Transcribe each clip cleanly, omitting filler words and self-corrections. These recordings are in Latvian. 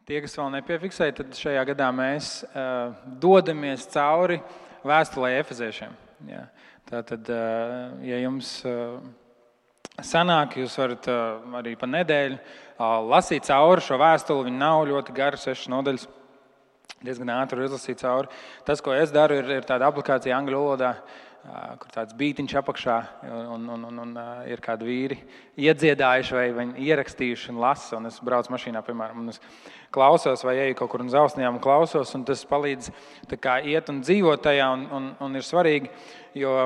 Tie, kas vēl nepiefiksēja, tad šajā gadā mēs dodamies cauri vēstulē Efeziešiem. Jā. Tātad, ja jums sanāk, jūs varat arī pa nedēļu lasīt cauri šo vēstuli. Viņa nav ļoti gara, 6 nodaļas. Diezgan ātri izlasīt cauri. Tas, ko es daru, ir tāda aplikācija angļu valodā, kur tāds bītiņš apakšā un ir kādi vīri iedziedājuši vai viņi ierakstījuši un lasa. Un es braucu mašīnā, piemēram, un es klausos vai eju kaut kur un zausnījām un klausos, un tas palīdz tā kā iet un dzīvot tajā un ir svarīgi, jo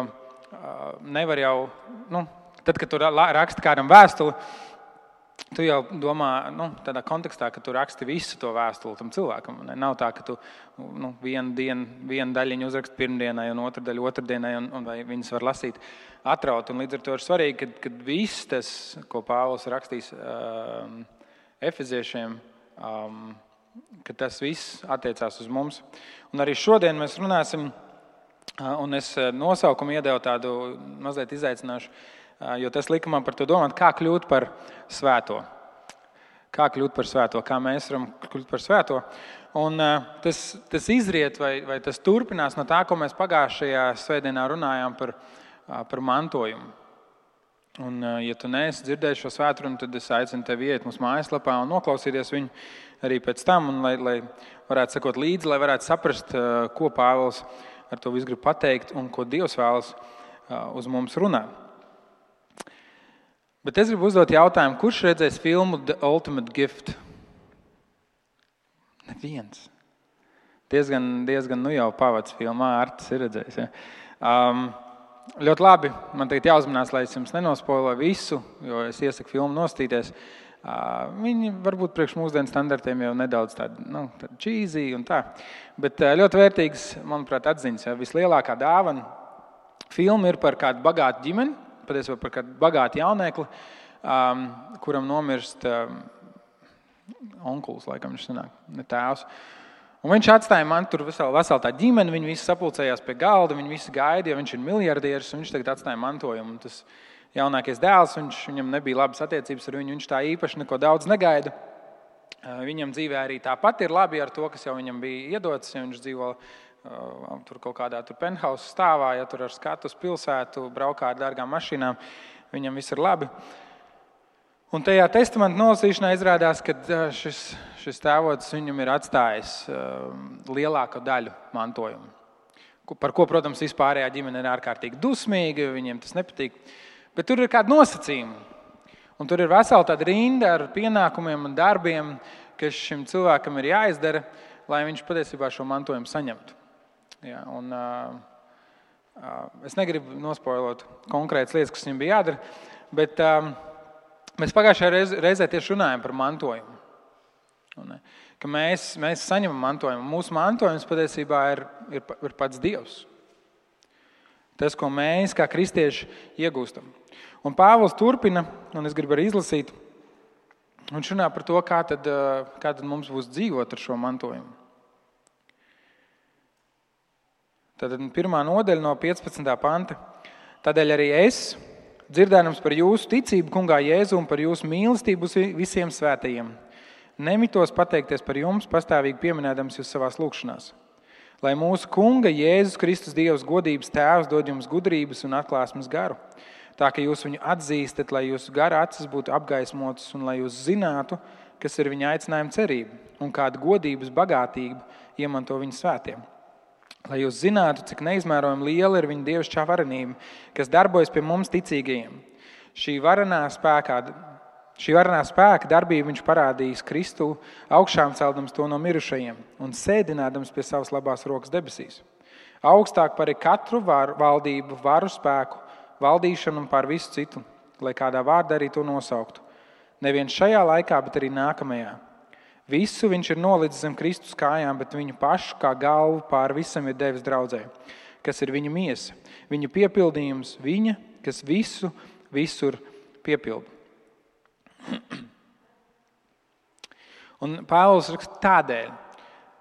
nevar jau, tad, kad tu raksti kādam vēstuli, tu jau domā tādā kontekstā, ka tu raksti visu to vēstuli tam cilvēkam. Nav tā, ka tu vienu daļiņu uzraksti pirmdienai un otru daļu otrdienai, un vai viņas var lasīt atraut. Un līdz ar to ir svarīgi, kad viss tas, ko Pāvils rakstīs Efeziešiem, ka tas viss attiecās uz mums. Un arī šodien mēs runāsim, un es nosaukumu iedevu tādu mazliet izaicināšu, jo tas lika man par to domāt, kā kļūt par svēto. Kā kļūt par svēto, kā mēs varam kļūt par svēto. Un tas izriet vai tas turpinās no tā, ko mēs pagājušajā svētdienā runājām par mantojumu. Un, ja tu neesi dzirdējis šo svētrunu, tad es aicinu tevi iet mūsu mājaslapā un noklausīties viņu arī pēc tam, un lai varētu sekot līdzi, lai varētu saprast, ko Pāvils ar to visu grib pateikt un ko Dievs vēlas uz mums runāt. Bet es gribu uzdot jautājumu, kurš redzēs filmu The Ultimate Gift? Neviens. Diezgan jau pavads filmā, Artis ir redzējis. Ja? Ļoti labi, man tagad jāuzmanās, lai es jums nenospoiloju visu, jo es iesaku filmu nostīties. Viņi varbūt priekš mūsdienu standartiem jau nedaudz tādi cheesy un tā. Bet ļoti vērtīgs, manuprāt, atziņas. Ja? Vislielākā dāvana filma ir par kādu bagātu ģimeni, patiesībā par kādu bagātu jauniekli, kuram nomirst onkulis, laikam viņš sanāk, ne tēvs. Un viņš atstāja man tur veselu tā ģimeni, viņi visi sapulcējās pie galda, viņi visi gaida, jo viņš ir miljardieris, un viņš tagad atstāja mantojumu. Un tas jaunākais dēls, viņam nebija labas attiecības ar viņu, viņš tā īpaši neko daudz negaida. Viņam dzīvē arī tāpat ir labi ar to, kas jau viņam bija iedots, ja viņš dzīvo tur kaut kādā penthouse stāvā, ja tur ar skatu uz pilsētu, braukā ar dārgām mašīnām, viņam viss ir labi. Un tajā testamenta nolasīšanā izrādās, ka šis tēvots viņam ir atstājis lielāko daļu mantojumu. Par ko, protams, vispārējā ģimene ir ārkārtīgi dusmīga, viņiem tas nepatīk. Bet tur ir kādi nosacījumi. Un tur ir vesela tāda rinda ar pienākumiem un darbiem, kas šim cilvēkam ir jāizdara, lai viņš patiesībā šo mantojumu saņemtu. Ja, un, es negribu nospoilot konkrētas lietas, kas viņam bija jādara, bet mēs pagājušajā reizē tieši runājam par mantojumu. Un, ka mēs saņemam mantojumu. Mūsu mantojums patiesībā ir pats Dievs. Tas, ko mēs kā kristieši iegūstam. Un Pāvils turpina, un es gribu arī izlasīt, un runā par to, kā tad mums būs dzīvot ar šo mantojumu. Tātad 1. nodaļa no 15. panta. Tādēļ arī es, dzirdēdams par jūsu ticību Kungā Jēzu un par jūsu mīlestību visiem svētajiem, nemitos pateikties par jums, pastāvīgi pieminēdams jūs savās lūgšanās. Lai mūsu Kunga Jēzus Kristus Dievs godības tēvs dod jums gudrības un atklāsmes garu, tā ka jūs viņu atzīstat, lai jūsu gara acis būtu apgaismotas un lai jūs zinātu, kas ir viņa aicinājuma cerība un kāda godības bagātība iemanto viņa svētiem. Lai jūs zinātu, cik neizmērojami liela ir viņa dievišķā varenība, kas darbojas pie mums ticīgajiem. Šī varenā spēka darbību viņš parādījis Kristu, augšām celdams to no mirušajiem un sēdinādams pie savas labās rokas debesīs. Augstāk par katru valdību, varu spēku, valdīšanu un pār visu citu, lai kādā vārdā arī to nosauktu. Nevien šajā laikā, bet arī nākamajā. Visu viņš ir nolicis zem Kristus kājām, bet viņu pašu kā galvu pār visam ir devis draudzē, kas ir viņa miesa, viņa piepildījums, viņa, kas visu visur piepilda. Un Pāvils raksta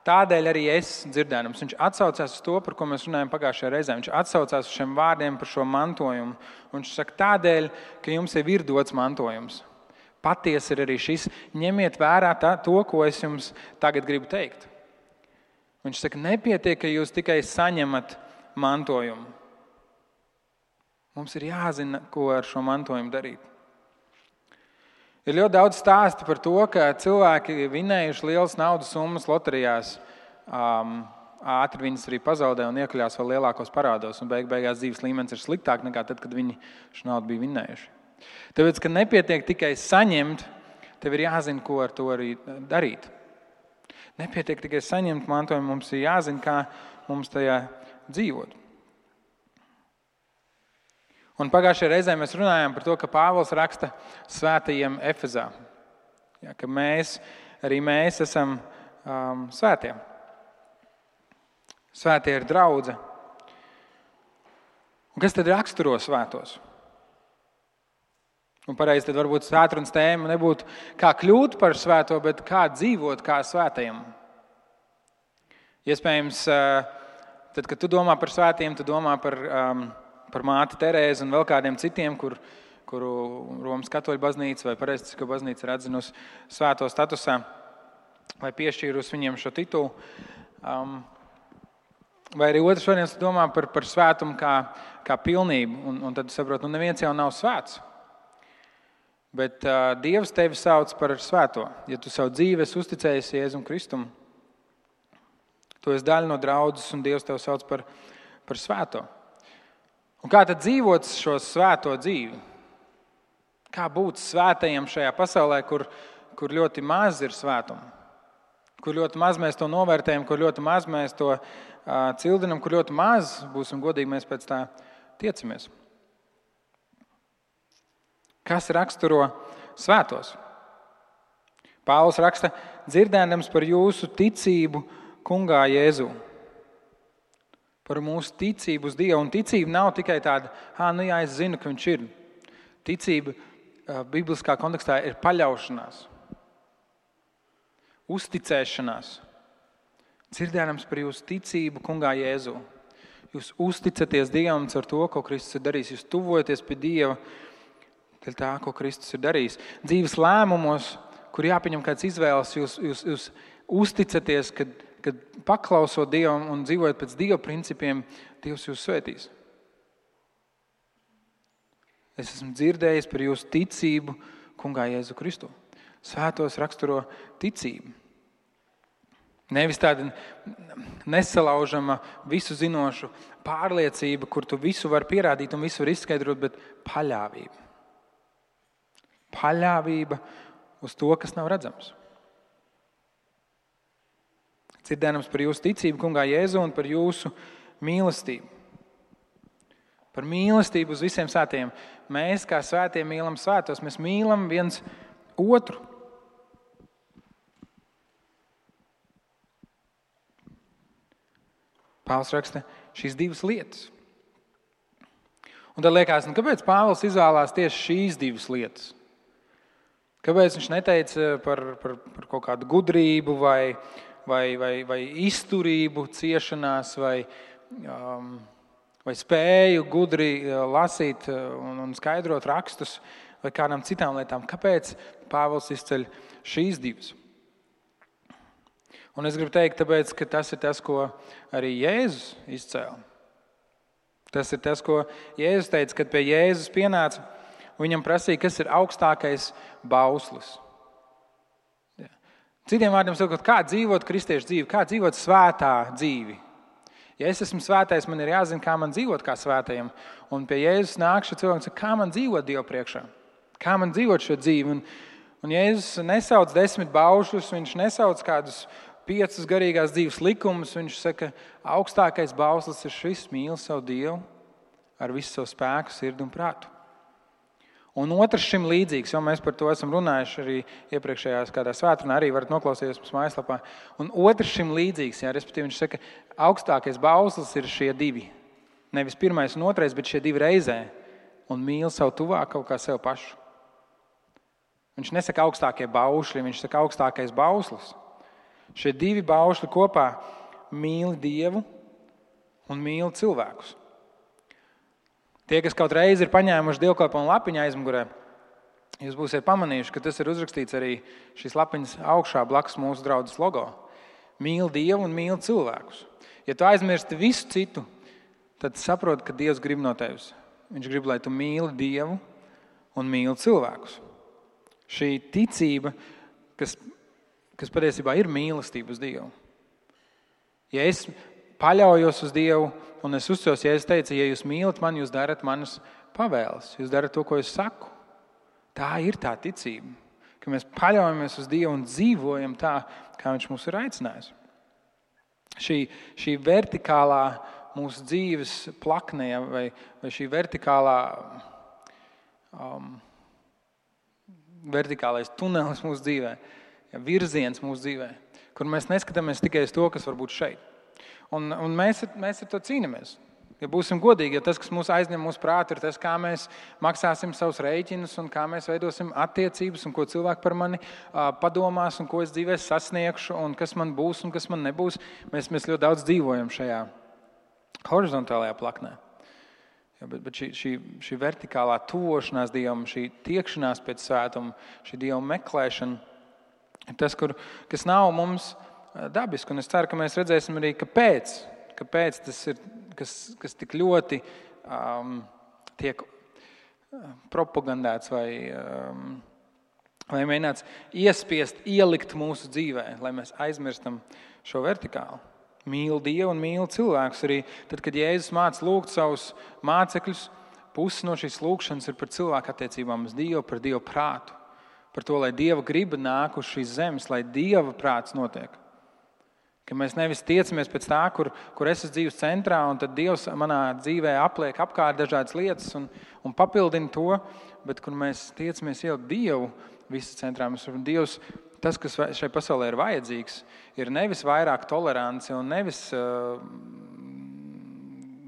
tādēļ arī es dzirdēdams. Viņš atsaucās uz to, par ko mēs runājam pagājušajā reizē. Viņš atsaucās uz šiem vārdiem par šo mantojumu. Un viņš saka tādēļ, ka jums jau ir dots mantojums. Patiesi ir arī šis. Ņemiet vērā to, ko es jums tagad gribu teikt. Viņš saka, nepietiek, ka jūs tikai saņemat mantojumu. Mums ir jāzina, ko ar šo mantojumu darīt. Ir ļoti daudz stāstu par to, ka cilvēki vinējuši lielas naudas summas loterijās, ātri viņas arī pazaudē un iekļās vēl lielākos parādos, un beigās dzīves līmenis ir sliktāk nekā tad, kad viņi šo naudu bija vinējuši. Tāpēc, ka nepietiek tikai saņemt, tev ir jāzina, ko ar to arī darīt. Nepietiek tikai saņemt mantojumu, mums ir jāzina, kā mums tajā dzīvot. Un pagājušajā reizē mēs runājām par to, ka Pāvils raksta svētajiem Efezā. Ja, ka arī mēs esam svētie. Svētie ir draudze. Un kas tad raksturo svētos? Un pareizi tad varbūt svētrunas tēma nebūtu kā kļūt par svēto, bet kā dzīvot kā svētajam. Iespējams, tad, kad tu domā par svētiem, tu domā par māti Terēzi un vēl kādiem citiem, kuru Romas katoļu baznīca vai pareizticīgo baznīca ir atzinusi svēto statusā vai piešķīrusi viņiem šo titulu. Vai arī otrs variants domā par svētumu kā pilnību, un tad saprot, neviens jau nav svēts. Bet Dievs tevi sauc par svēto. Ja tu savu dzīvi esi uzticējis Jēzum Kristum, tu esi daļa no draudzes, un Dievs tevi sauc par svēto. Un kā tad dzīvot šo svēto dzīvi? Kā būt svētajiem šajā pasaulē, kur ļoti maz ir svētuma? Kur ļoti maz mēs to novērtējam, kur ļoti maz mēs to cildinam, kur ļoti maz, būsim godīgi, mēs pēc tā tiecamies. Kas raksturo svētos? Pāvils raksta, dzirdēdams par jūsu ticību Kungā Jēzū. Par mūsu ticību uz Dievu. Un ticība nav tikai tāda, es zinu, ka viņš ir. Ticība bibliskā kontekstā ir paļaušanās, uzticēšanās. Dzirdēdams par jūsu ticību Kungā Jēzū. Jūs uzticaties Dievam ar to, ko Kristus ir darījis. Jūs tuvojaties pie Dieva dēļ tā, ko Kristus ir darījis. Dzīves lēmumos, kur jāpieņem kāds izvēles, jūs uzticaties, kad paklausot Dievam un dzīvojot pēc Dieva principiem, Dievs jūs svētīs. Es esmu dzirdējis par jūsu ticību Kungā Jēzu Kristu. Svētos raksturo ticību. Nevis tāda nesalaužama, visu zinošu pārliecība, kur tu visu var pierādīt un visu var izskaidrot, bet paļāvība. Paļāvība uz to, kas nav redzams. Dzirdēdams par jūsu ticību Kungā Jēzu un par jūsu mīlestību. Par mīlestību uz visiem svētiem. Mēs, kā svētie, mīlam svētos. Mēs mīlam viens otru. Pāvils raksta šīs divas lietas. Un tad liekas, kāpēc Pāvils izvēlās tieši šīs divas lietas? Kāpēc viņš neteica par kaut kādu gudrību vai izturību ciešanās vai spēju gudri lasīt un skaidrot rakstus vai kādām citām lietām? Kāpēc Pāvils izceļ šīs divas? Un es gribu teikt, tāpēc, ka tas ir tas, ko arī Jēzus izcēla. Tas ir tas, ko Jēzus teica, kad pie Jēzus pienāca. Viņam prasīja, kas ir augstākais bauslis. Citiem vārdiem sakot, kā dzīvot kristiešu dzīvi, kā dzīvot svētā dzīvi. Ja es esmu svētais, man ir jāzina, kā man dzīvot kā svētajam. Un pie Jēzus nāk šis cilvēks, kā man dzīvot Dievu priekšā. Kā man dzīvot šo dzīvi. Un Jēzus nesauc 10 baušļus, viņš nesauc kādus 5 garīgās dzīves likumus. Viņš saka, augstākais bauslis ir šis: mīli savu Dievu ar visu savu spēku, sirdi un prātu. Un otrs šim līdzīgs, jo mēs par to esam runājuši arī iepriekšējās kādā svētdienā, arī varat noklausīties mums mājaslapā. Un otrs šim līdzīgs, respektīvi viņš saka, augstākais bauslis ir šie divi. Nevis pirmais un otrais, bet šie divi reizē. Un mīli savu tuvāko kā sev pašu. Viņš nesaka augstākie baušļi, viņš saka augstākais bauslis. Šie divi baušļi kopā mīli Dievu un mīli cilvēkus. Tie, kas kaut reizi ir paņēmuši dievkalpojumu lapiņu aizmugurē, Jūs būsiet pamanījuši, ka tas ir uzrakstīts arī šīs lapiņas augšā blakus mūsu draudzes logo. Mīli Dievu un mīli cilvēkus. Ja tu aizmirsti visu citu, tad saproti, ka Dievs grib no tevis. Viņš grib, lai tu mīli Dievu un mīli cilvēkus. Šī ticība, kas patiesībā ir mīlestība uz Dievu. Ja es paļaujos uz Dievu un es uzticos, ja es teicu, ja jūs mīlat mani, jūs darat manas pavēles, jūs darat to, ko es saku. Tā ir tā ticība, ka mēs paļaujamies uz Dievu un dzīvojam tā, kā Viņš mūs ir aicinājis. Šī vertikālā mūsu dzīves plakne vai šī vertikālais tunelis mūsu dzīvē, virziens mūsu dzīvē, kur mēs neskatāmies tikai uz to, kas var būt šeit. Un mēs ar to cīnāmies. Ja būsim godīgi, ja tas, kas mūs aizņem mūsu prātu, ir tas, kā mēs maksāsim savus rēķinus un kā mēs veidosim attiecības un ko cilvēki par mani padomās un ko es dzīvē sasniegšu un kas man būs un kas man nebūs, mēs ļoti daudz dzīvojam šajā horizontālajā plaknē. Ja, bet šī vertikālā tuvošanās Dievam, šī tiekšanās pēc svētuma, šī Dieva meklēšana, ir tas, kas nav mums dabiski. Un es ceru, ka mēs redzēsim arī, kāpēc tas ir, kas tik ļoti tiek propagandēts vai mēģināts iespiest, ielikt mūsu dzīvē, lai mēs aizmirstam šo vertikālu. Mīli Dievu un mīli cilvēkus. Arī tad, kad Jēzus māca lūgt savus mācekļus, pusi no šīs lūgšanas ir par cilvēku attiecībām uz Dievu, par Dieva prātu. Par to, lai Dieva griba nāk uz šīs zemes, lai Dieva prāts notiek. Ka mēs nevis tiecamies pēc tā, kur es esmu dzīves centrā, un tad Dievs manā dzīvē apliek apkārt dažādas lietas un papildina to, bet kur mēs tiecamies ielikt Dievu visu centrā. Dievs, tas, kas šai pasaulē ir vajadzīgs, ir nevis vairāk tolerance un nevis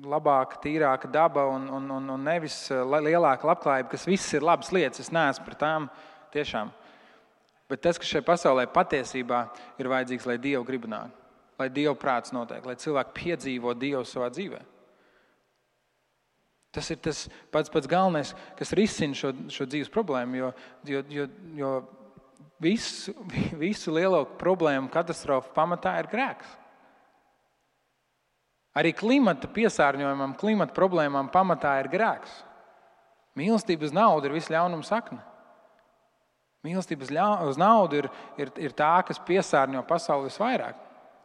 labāka, tīrāka daba un nevis lielāka labklājība, kas viss ir labas lietas, es neesmu par tām tiešām. Bet tas, kas šai pasaulē patiesībā ir vajadzīgs, lai Dievu griba nāk, lai Dieva prāts notiek, lai cilvēki piedzīvo Dievu savā dzīvē. Tas ir tas pats galvenais, kas risina šo dzīves problēmu, jo visu lielo problēmu katastrofu pamatā ir grēks. Arī klimata piesārņojumam, klimata problēmām pamatā ir grēks. Mīlestība uz naudu ir visa ļaunuma sakne. Mīlestība uz naudu ir tā, kas piesārņo pasauli visvairāk.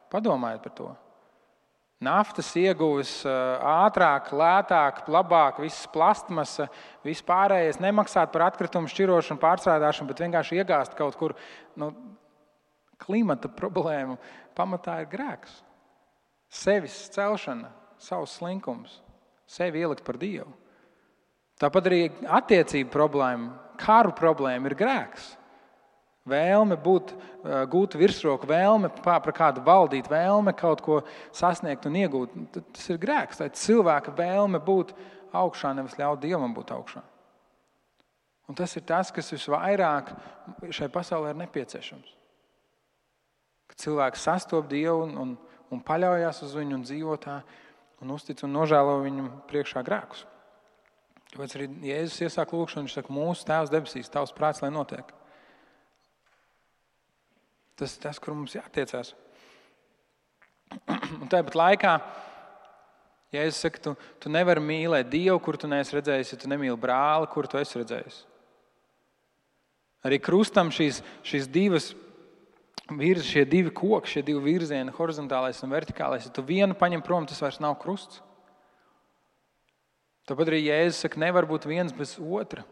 Padomājiet par to. Naftas ieguves ātrāk, lētāk, labāk, viss plastmasa, viss pārējais, nemaksāt par atkritumu šķirošanu, pārstrādāšanu, bet vienkārši iegāzt kaut kur. Klimata problēma pamatā ir grēks. Sevis celšana, savs slinkums, sevi ielikt par Dievu. Tāpat arī attiecību problēma, karu problēma ir grēks. Vēlme gūt virsroku, vēlme par kādu valdīt, vēlme kaut ko sasniegt un iegūt. Tas ir grēks. Tā ir cilvēka vēlme būt augšā, nevis ļaut Dievam būt augšā. Un tas ir tas, kas visvairāk šai pasaulē ir nepieciešams. Kad cilvēks sastop Dievu un paļaujas uz viņu un dzīvo tā un uztic un nožēlo viņam priekšā grēkus. Tāpēc arī Jēzus iesāk lūgšanu, viņš saka, mūsu Tēvs debesīs, tavs prāts, lai notiek. Tas ir tas, kur mums jātiecās. Un tāpat laikā, ja es saku, tu nevari mīlēt Dievu, kur tu neesi redzējis, ja tu nemīli brāli, kur tu esi redzējis. Arī krustam šīs divas šie divi koki, šie divi virzieni, horizontālais un vertikālais, ja tu vienu paņem prom, tas vairs nav krusts. Tāpat arī Jēzus saka, nevar būt viens bez otra.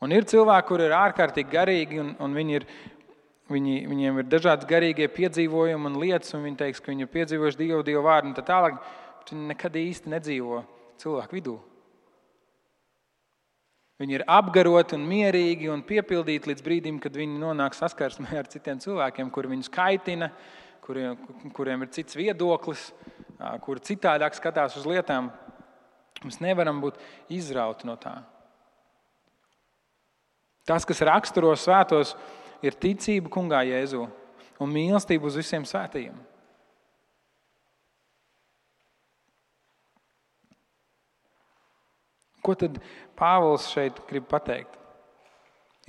Un ir cilvēki, kuri ir ārkārtīgi garīgi, un viņiem ir dažādas garīgie piedzīvojumi un lietas, un viņi teiks, ka viņi ir piedzīvojuši Dievu vārdu un tā tālāk, bet viņi nekad īsti nedzīvo cilvēku vidū. Viņi ir apgaroti un mierīgi un piepildīti līdz brīdim, kad viņi nonāk saskarsmē ar citiem cilvēkiem, kuri viņus kaitina, kuriem ir cits viedoklis, kuri citādāk skatās uz lietām. Mēs nevaram būt izrauti no tā. Tas, kas raksturo svētos, ir ticība Kungā Jēzu un mīlestība uz visiem svētajiem. Ko tad Pāvils šeit grib pateikt?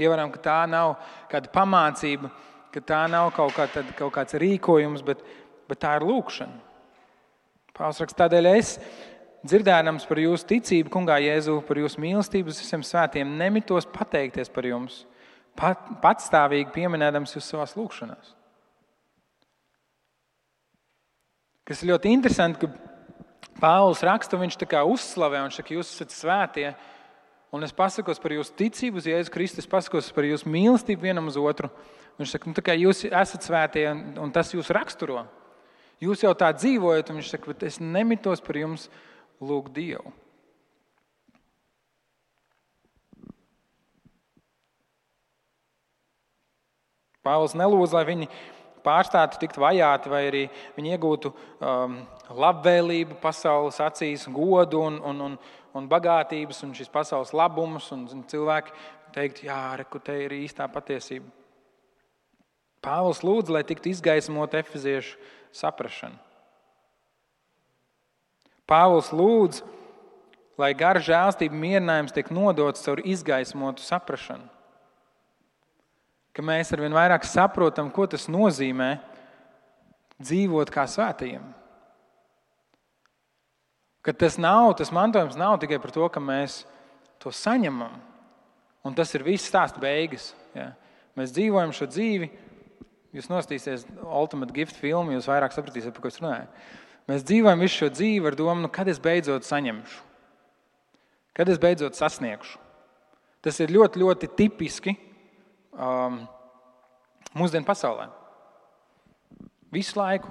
Ievaram, ka tā nav kāda pamācība, ka tā nav kaut kāds rīkojums, bet tā ir lūkšana. Pāvils raksta, tādēļ es, dzirdēdams par jūsu ticību, Kungā Jēzu, par jūsu mīlestību uz visiem svētiem, nemitos pateikties par jums, patstāvīgi pieminēdams jūs savās lūkšanās. Kas ir ļoti interesanti, ka Pāvils raksta, viņš tā kā uzslavē, viņš saka, jūs esat svētie, un es pasakos par jūsu ticību uz Jēzu Kristu, es pasakos par jūsu mīlestību vienam uz otru. Viņš saka, tā kā jūs esat svētie, un tas jūs raksturo. Jūs jau tā dzīvojat, un viņš saka, bet es nemitos par jums lūgt Dievu. Pāvils nelūdz, lai viņi pārstātu tikt vajāti, vai arī viņi iegūtu labvēlību pasaules acīs, godu un bagātības un šīs pasaules labumus, un cilvēki teikt, jā, reku, te ir īstā patiesība. Pāvils lūdz, lai tiktu izgaismot efeziešu saprašanu. Pāvils lūdz, lai gara žēlstība mierinājums tiek nodots caur izgaismotu saprašanu. Ka mēs arvien vairāk saprotam, ko tas nozīmē dzīvot kā svētajiem. Ka tas mantojums nav tikai par to, ka mēs to saņemam. Un tas ir viss stāsta beigas. Ja. Mēs dzīvojam šo dzīvi, jūs nostīsies Ultimate Gift filmu, jūs vairāk sapratīsiet, par ko es runāju. Mēs dzīvojam visu šo dzīvi ar domu, kad es beidzot saņemšu. Kad es beidzot sasniegšu. Tas ir ļoti, ļoti tipiski mūsdienu pasaulē. Visu laiku.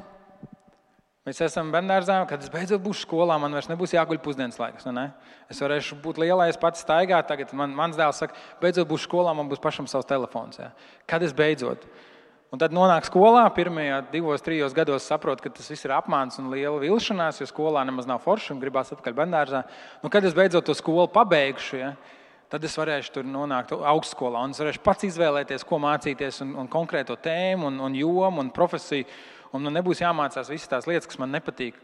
Mēs esam bērnდārzā, kad es beidzot būšu skolā, man vairs nebūs jāguļ pusdienas laiks. Ne? Es varēšu būt lielais, pats staigāt. Tagad mans dēls saka, beidzot būšu skolā, man būs pašam savs telefons. Ja? Kad es beidzot? Un tad nonāk skolā, pirmajā 2-3 gados saprot, ka tas viss ir apmāns un liela vilšanās, jo skolā nemaz nav forši un gribās atpakaļ bērndārzā. Kad es beidzot to skolu pabeigšu, ja? Tad es varēšu tur nonākt augstskolā un es varēšu pats izvēlēties, ko mācīties un konkrēto tēmu un jomu un profesiju. Un man nebūs jāmācās visas tās lietas, kas man nepatīk.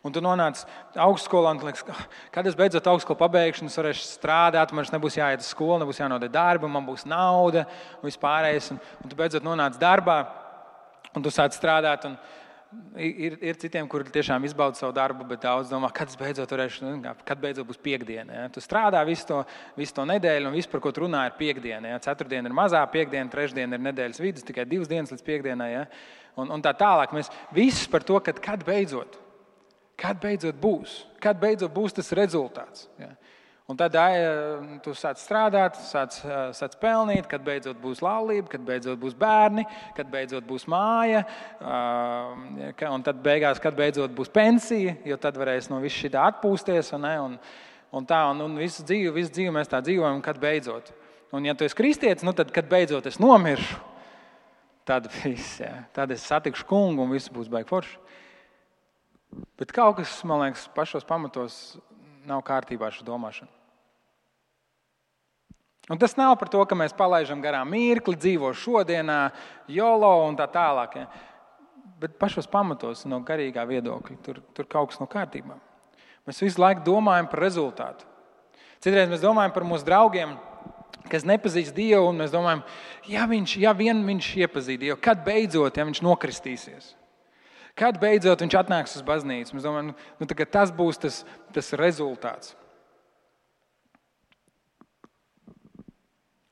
Un tu nonāc augstskolā un tu liekas, kad es beidzot augstskolu pabeigšu, es varēšu strādāt, man nebūs jāiet uz skolu, nebūs jānodod darbu, man būs nauda un vispārējais. Un tu beidzot nonāc darbā un tu sāc strādāt. Un ir citiem, kuri tiešām izbauda savu darbu, bet daudz domā, kad beidzot būs piekdiena. Ja? Tu strādā visu to nedēļu, un viss, par ko tu runā, ir piekdiena. Ja? Ceturtdiena ir mazā piekdiena, trešdiena ir nedēļas vidus, tikai 2 dienas līdz piekdienai. Ja? Un tā tālāk. Mēs visi par to, kad beidzot būs tas rezultāts. Ja? Un tad tu sāc strādāt, sāc pelnīt, kad beidzot būs laulība, kad beidzot būs bērni, kad beidzot būs māja, un tad beigās, kad beidzot būs pensija, jo tad varēs no viss šitā atpūsties. Un visu dzīvi mēs tā dzīvojam, kad beidzot. Un ja tu esi kristietis, tad, kad beidzot es nomiršu, tad viss, ja, tad es satikšu kungu un viss būs baigi forši. Bet kaut kas, man liekas, pašos pamatos nav kārtībā šo domāšanu. Un tas nav par to, ka mēs palaidām garām mirkli, dzīvo šodienā, jolo un tā tālāk. Ja. Bet pašos pamatos no garīgā viedokļa tur kaut kas nav kārtībā. Mēs visu laiku domājam par rezultātu. Citreiz mēs domājam par mūsu draugiem, kas nepazīst Dievu, un mēs domājam, ja vien viņš iepazīst Dievu, kad beidzot, ja viņš nokristīsies. Kad beidzot viņš atnāks uz baznīcu? Mēs domājam, tas būs tas rezultāts.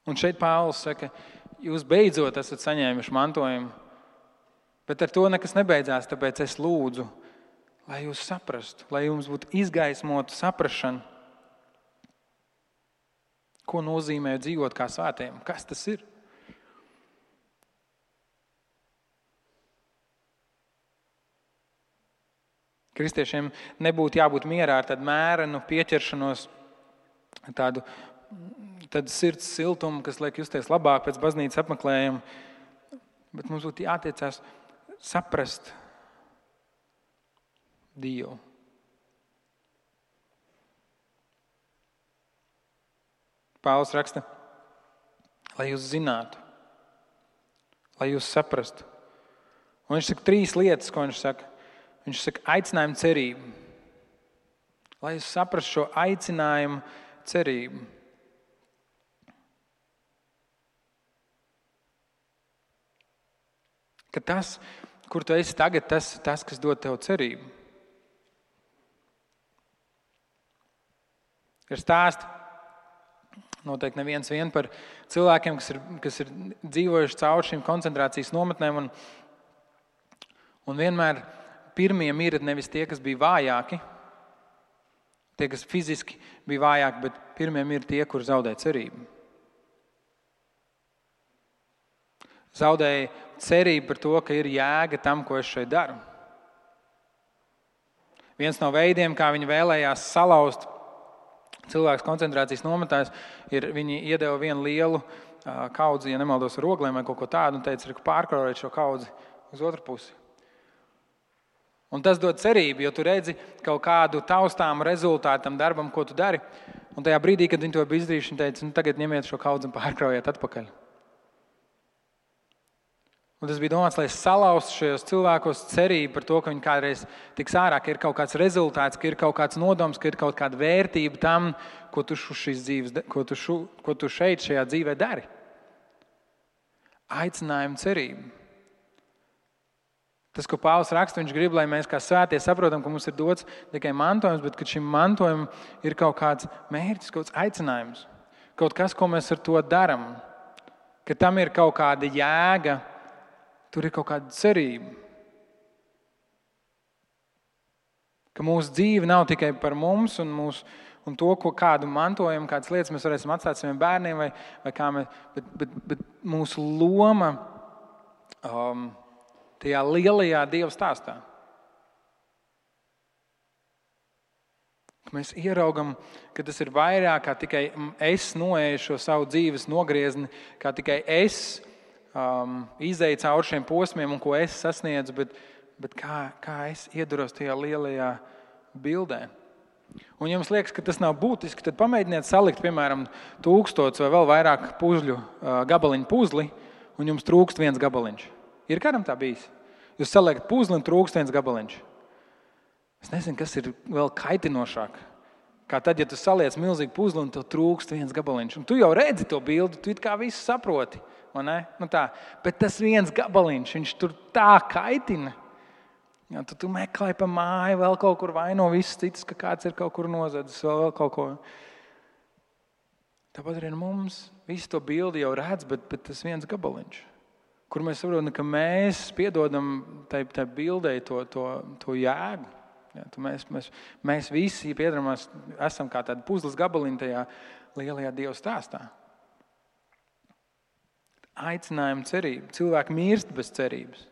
Un šeit Pāvils saka, jūs beidzot esat saņēmuši mantojumu, bet ar to nekas nebeidzās, tāpēc es lūdzu, lai jūs saprastu, lai jums būtu izgaismota saprašana, ko nozīmē dzīvot kā svētiem, kas tas ir. Kristiešiem nebūtu jābūt mierā ar tādu mērenu pieķeršanos, tādu sirds siltumu, kas liek justies labāk pēc baznīcas apmeklējuma, bet mums būtu jātiecās saprast Dievu. Pāvils raksta, lai jūs zinātu, lai jūs saprastu. Un viņš saka 3 lietas, ko viņš saka. Viņš saka aicinājumu cerību. Lai jūs saprastu šo aicinājumu cerību. Ka tas, kur tu esi tagad, tas, kas dod tev cerību. Ir stāsti, noteikti neviens vien par cilvēkiem, kas ir dzīvojuši cauri šīm koncentrācijas nometnēm. Un vienmēr pirmie mirti nevis tie, kas bija vājāki, tie, kas fiziski bija vājāki, bet pirmie mirti tie, kur zaudēja cerību. Zaudēja cerību par to, ka ir jēga tam, ko es šeit daru. Viens no veidiem, kā viņi vēlējās salauzt cilvēks koncentrācijas nometnēs, ir viņi iedeva vienu lielu kaudzi, ja nemaldos, ar ogliem vai kaut ko tādu, un teica, ka pārkraujiet šo kaudzi uz otru pusi. Un tas dod cerību, jo tu redzi kaut kādu taustāmu rezultātu tam darbam, ko tu dari. Un tajā brīdī, kad viņi to bija izdarījuši, viņi teica, tagad ņemiet šo kaudzi un pārkraujiet atpakaļ. Un tas bija domāts, lai salauztu šajos cilvēkos cerību par to, ka viņi kādreiz tiks ārā, ka ir kaut kāds rezultāts, ka ir kaut kāds nodoms, ka ir kaut kāda vērtība tam, ko tu šeit šajā dzīvē dari. Aicinājumu cerību. Tas, ko Pāvils raksta, viņš grib, lai mēs kā svētie saprotam, ka mums ir dots tikai mantojums, bet ka šim mantojumam ir kaut kāds mērķis, kaut kāds aicinājums. Kaut kas, ko mēs ar to daram. Ka tam ir kaut kāda jēga, tur ir kaut kāda cerība. Ka mūsu dzīve nav tikai par mums un to, kādu mantojumu, kādas lietas mēs varēsim atstāt saviem bērniem, vai kā mēs, bet mūsu loma tajā lielajā Dieva stāstā. Mēs ieraugam, ka tas ir vairāk kā tikai es noeju šo savu dzīves nogriezni, kā tikai es izēju cauri šiem posmiem un ko es sasniedzu, bet kā es ieduros tajā lielajā bildē. Un ja jums liekas, ka tas nav būtiski, tad pamēģiniet salikt, piemēram, 1000 vai vēl vairāk puzļu gabaliņu puzli, un jums trūkst viens gabaliņš. Ir kādam tā bijis? Jūs saliekat puzli un trūkst viens gabaliņš. Es nezinu, kas ir vēl kaitinošāk. Kā tad, ja tu saliec milzīgu puzli un tev trūkst viens gabaliņš. Un tu jau redzi to bildi, tu it kā visu saproti. Vai ne? Nu tā. Bet tas viens gabaliņš, viņš tur tā kaitina. Ja, tu meklē pa māju, vēl kaut kur vaino visus citus, ka kāds ir kaut kur nozadzis, vēl kaut ko. Tāpat arī mums visu to bildi jau redz, bet tas viens gabaliņš. Kur mēs saprotam, ka mēs piedodam tai bildei to jēgu. Ja, mēs visi piedaramies, esam kā tādi puzles gabaliņi tajā lielajā Dieva stāstā. Aicinājumu cerību. Cilvēki mirst bez cerības.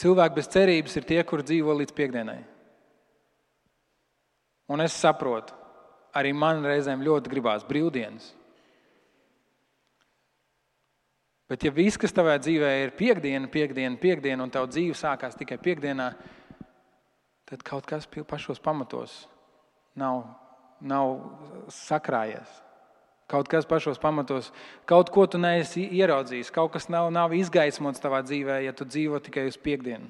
Cilvēki bez cerības ir tie, kuri dzīvo līdz piekdienai. Un es saprotu, arī man reizēm ļoti gribās brīvdienas. Bet ja viss, kas tavā dzīvē ir piekdiena, un tava dzīve sākās tikai piekdienā, tad kaut kas pašos pamatos nav sakrājies. Kaut kas pašos pamatos, kaut ko tu neesi ieraudzījis, kaut kas nav izgaismots tavā dzīvē, ja tu dzīvo tikai uz piekdienu.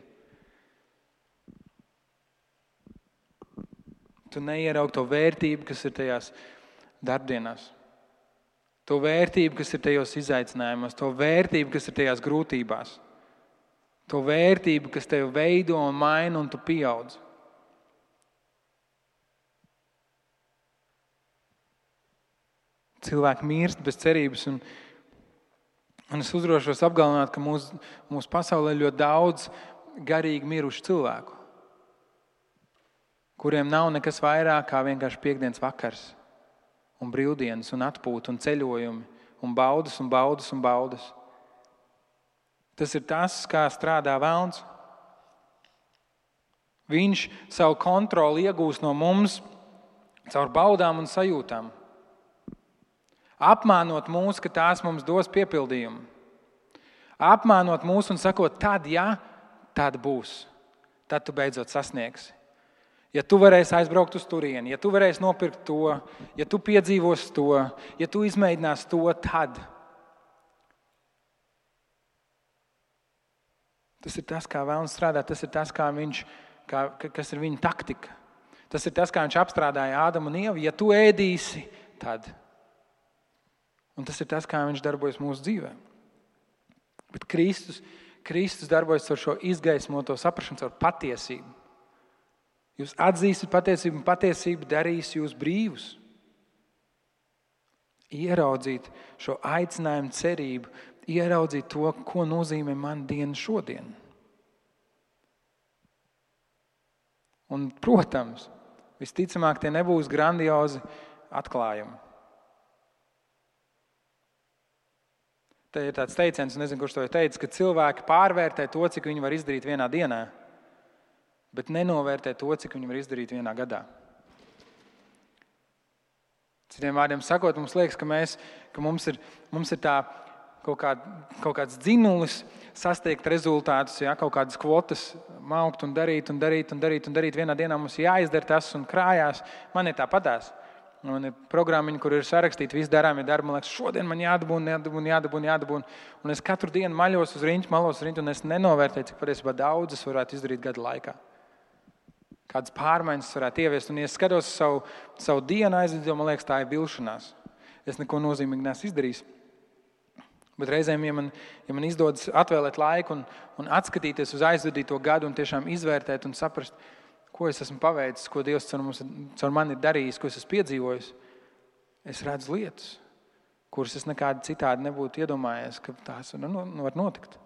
Tu neieraugi to vērtību, kas ir tajās darbdienās. To vērtību, kas ir tajos izaicinājumos, to vērtību, kas ir tajās grūtībās, to vērtību, kas tevi veido un maina un tu pieaudz. Cilvēki mirst bez cerības un es uzdrošos apgalvināt, ka mūsu pasaulē ļoti daudz garīgi mirušu cilvēku, kuriem nav nekas vairāk kā vienkārši piekdienas vakars. Un brīvdienas, un atpūta, un ceļojumi, un baudas, un baudas, un baudas. Tas ir tas, kā strādā velns. Viņš savu kontroli iegūst no mums caur baudām un sajūtām. Apmānot mūs, ka tās mums dos piepildījumu. Apmānot mūs un sakot, tad būs. Tad tu beidzot sasniegsi. Ja tu varēsi aizbraukt uz turieni, ja tu varēsi nopirkt to, ja tu piedzīvosi to, ja tu izmēģināsi to, tad. Tas ir tas, kā velns strādā, tas ir tas, kas ir viņa taktika. Tas ir tas, kā viņš apstrādāja Ādamu un Ievu. Ja tu ēdīsi, tad. Un tas ir tas, kā viņš darbojas mūsu dzīvē. Bet Kristus darbojas ar šo izgaismoto saprašanu, ar patiesību. Jūs atzīsiet patiesību, un patiesība darīs jūs brīvus. Ieraudzīt šo aicinājumu, cerību, ieraudzīt to, ko nozīmē man diena šodien. Un, protams, visticamāk, tie nebūs grandiozi atklājumi. Te ir tāds teiciens, nezinu, kurš to ir teicis, ka cilvēki pārvērtē to, cik viņi var izdarīt vienā dienā, bet nenovērtē to, cik viņi var izdarīt vienā gadā. Citiem vārdiem sakot, mums liekas, ka mums ir tā kaut kāds dzinulis sasniegt rezultātus, ja, kaut kādas kvotas maukt un darīt. Vienā dienā mums jāizdara tas un krājās. Man ir tāpatās. Man ir programmiņi, kur ir sarakstīti visi darāmie darbi. Man liekas, šodien man jādabūn. Un es katru dienu malos uz riņķi, un es nenovērtēju, cik patiesībā daudz es varētu izdarīt gadu laikā. Kādas pārmaiņas varētu ieviest. Un, ja es skatos savu dienu aizvadīju, man liekas, tā ir vilšanās. Es neko nozīmīgi neesmu izdarījis. Bet reizēm, ja man izdodas atvēlēt laiku un atskatīties uz aizvadīto gadu un tiešām izvērtēt un saprast, ko es esmu paveicis, ko Dievs caur mani ir darījis, ko es esmu piedzīvojis, es redzu lietas, kuras es nekādi citādi nebūtu iedomājies, ka tās var notikt.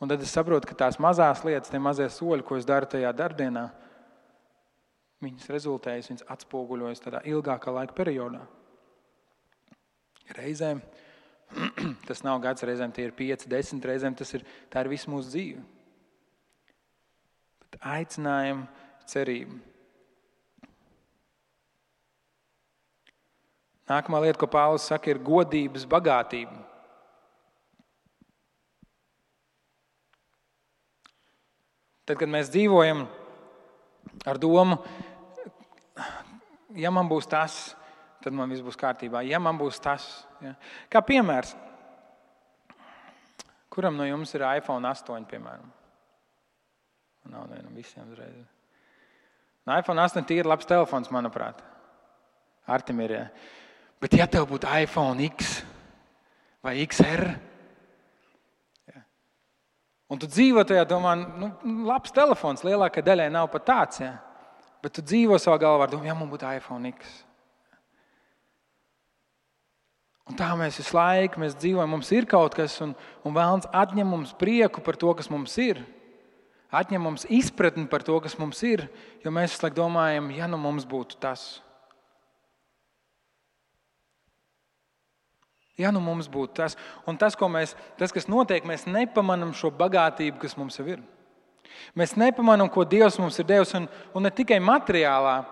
Un tad es saprotu, ka tās mazās lietas, tie mazie soļi, ko es daru tajā darbdienā, viņas rezultējas, viņas atspoguļojas tādā ilgākā laika periodā. Reizēm tas nav gads, reizēm tie ir 5, 10, reizēm tā ir visu mūsu dzīve. Bet aicinājumu, cerību. Nākamā lieta, ko Pāvils saka, ir godības bagātība. Tad, kad mēs dzīvojam ar domu, ja man būs tas, tad man viss būs kārtībā. Ja man būs tas. Ja. Kā piemērs, kuram no jums ir iPhone 8, piemēram? Nav nevienam visiem uzreiz. iPhone 8 ir labs telefons, manuprāt. Artim ir, ja. Bet ja tev būtu iPhone X vai XR, ja, un tu dzīvo tajā domā, labs telefons, lielākai daļai nav pat tāds, ja, bet tu dzīvo savā galvā ar domu, ja man būtu iPhone X. Un tā mēs visu laiku dzīvojam, mums ir kaut kas, un Vēlns atņem mums prieku par to, kas mums ir. Atņem mums izpratni par to, kas mums ir, jo mēs visu laiku domājam, ja mums būtu tas. Ja mums būtu tas. Un tas, kas notiek, mēs nepamanām šo bagātību, kas mums jau ir. Mēs nepamanām, ko Dievs mums ir devis, un ne tikai materiālā.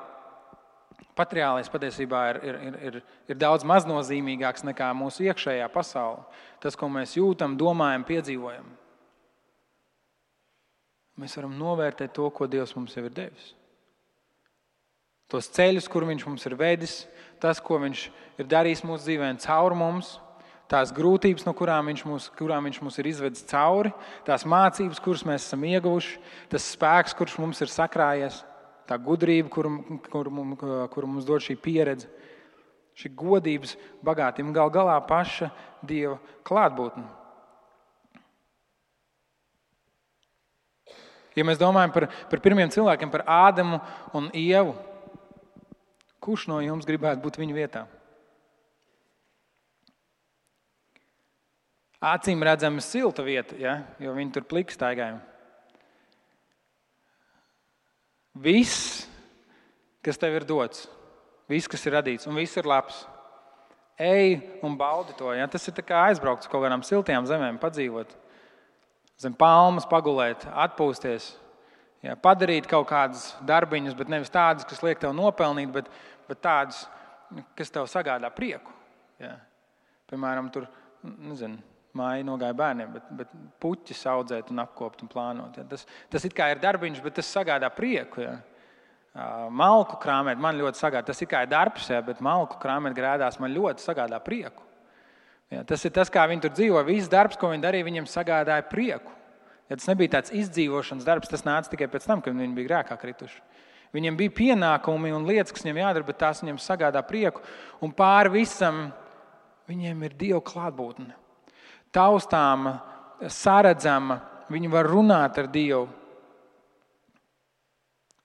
Materiālais patiesībā ir daudz maznozīmīgāks nekā mūsu iekšējā pasaule. Tas, ko mēs jūtam, domājam, piedzīvojam. Mēs varam novērtēt to, ko Dievs mums jau ir devis. Tos ceļus, kur Viņš mums ir vedis, tas, ko Viņš ir darījis mūsu dzīvēm caur mums, tās grūtības, no kurām viņš mūs ir izvedis cauri, tās mācības, kuras mēs esam ieguvuši, tas spēks, kurš mums ir sakrājies. Tā gudrība, kuru mums dod šī pieredze, šī godības bagātība, gal galā paša Dieva klātbūtne. Ja mēs domājam par pirmiem cilvēkiem, par Ādamu un Ievu, kurš no jums gribētu būt viņu vietā? Acīm redzama silta vieta, ja? Jo viņi tur pliks staigāja. Viss, kas tev ir dots, viss, kas ir radīts, un viss ir labs. Ej un baudi to. Ja? Tas ir tā kā aizbraukt uz kaut kādām siltajām zemēm, padzīvot. Zem palmas pagulēt, atpūsties. Ja? Padarīt kaut kādas darbiņas, bet nevis tādas, kas liek tev nopelnīt, bet tādas, kas tev sagādā prieku. Ja? Piemēram, tur, māja nogāja bērniem, bet puķis audzēt un apkopt un plānot. Ja. Tas it kā ir darbiņš, bet tas sagādā prieku. Ja. Malku krāmēt man ļoti sagādā. Tas it kā ir darbs, ja, bet malku krāmēt grēdās man ļoti sagādā prieku. Ja. Tas ir tas, kā viņi tur dzīvo. Viss darbs, ko viņi darīja, viņiem sagādāja prieku. Ja tas nebija tāds izdzīvošanas darbs, tas nāca tikai pēc tam, kad viņi bija grēkā krituši. Viņiem bija pienākumi un lietas, kas viņiem jādara, bet tās viņiem sagādā prieku. Un pāri visam viņiem ir Dieva klātbūtne. Taustāma, saredzama, viņi var runāt ar Dievu.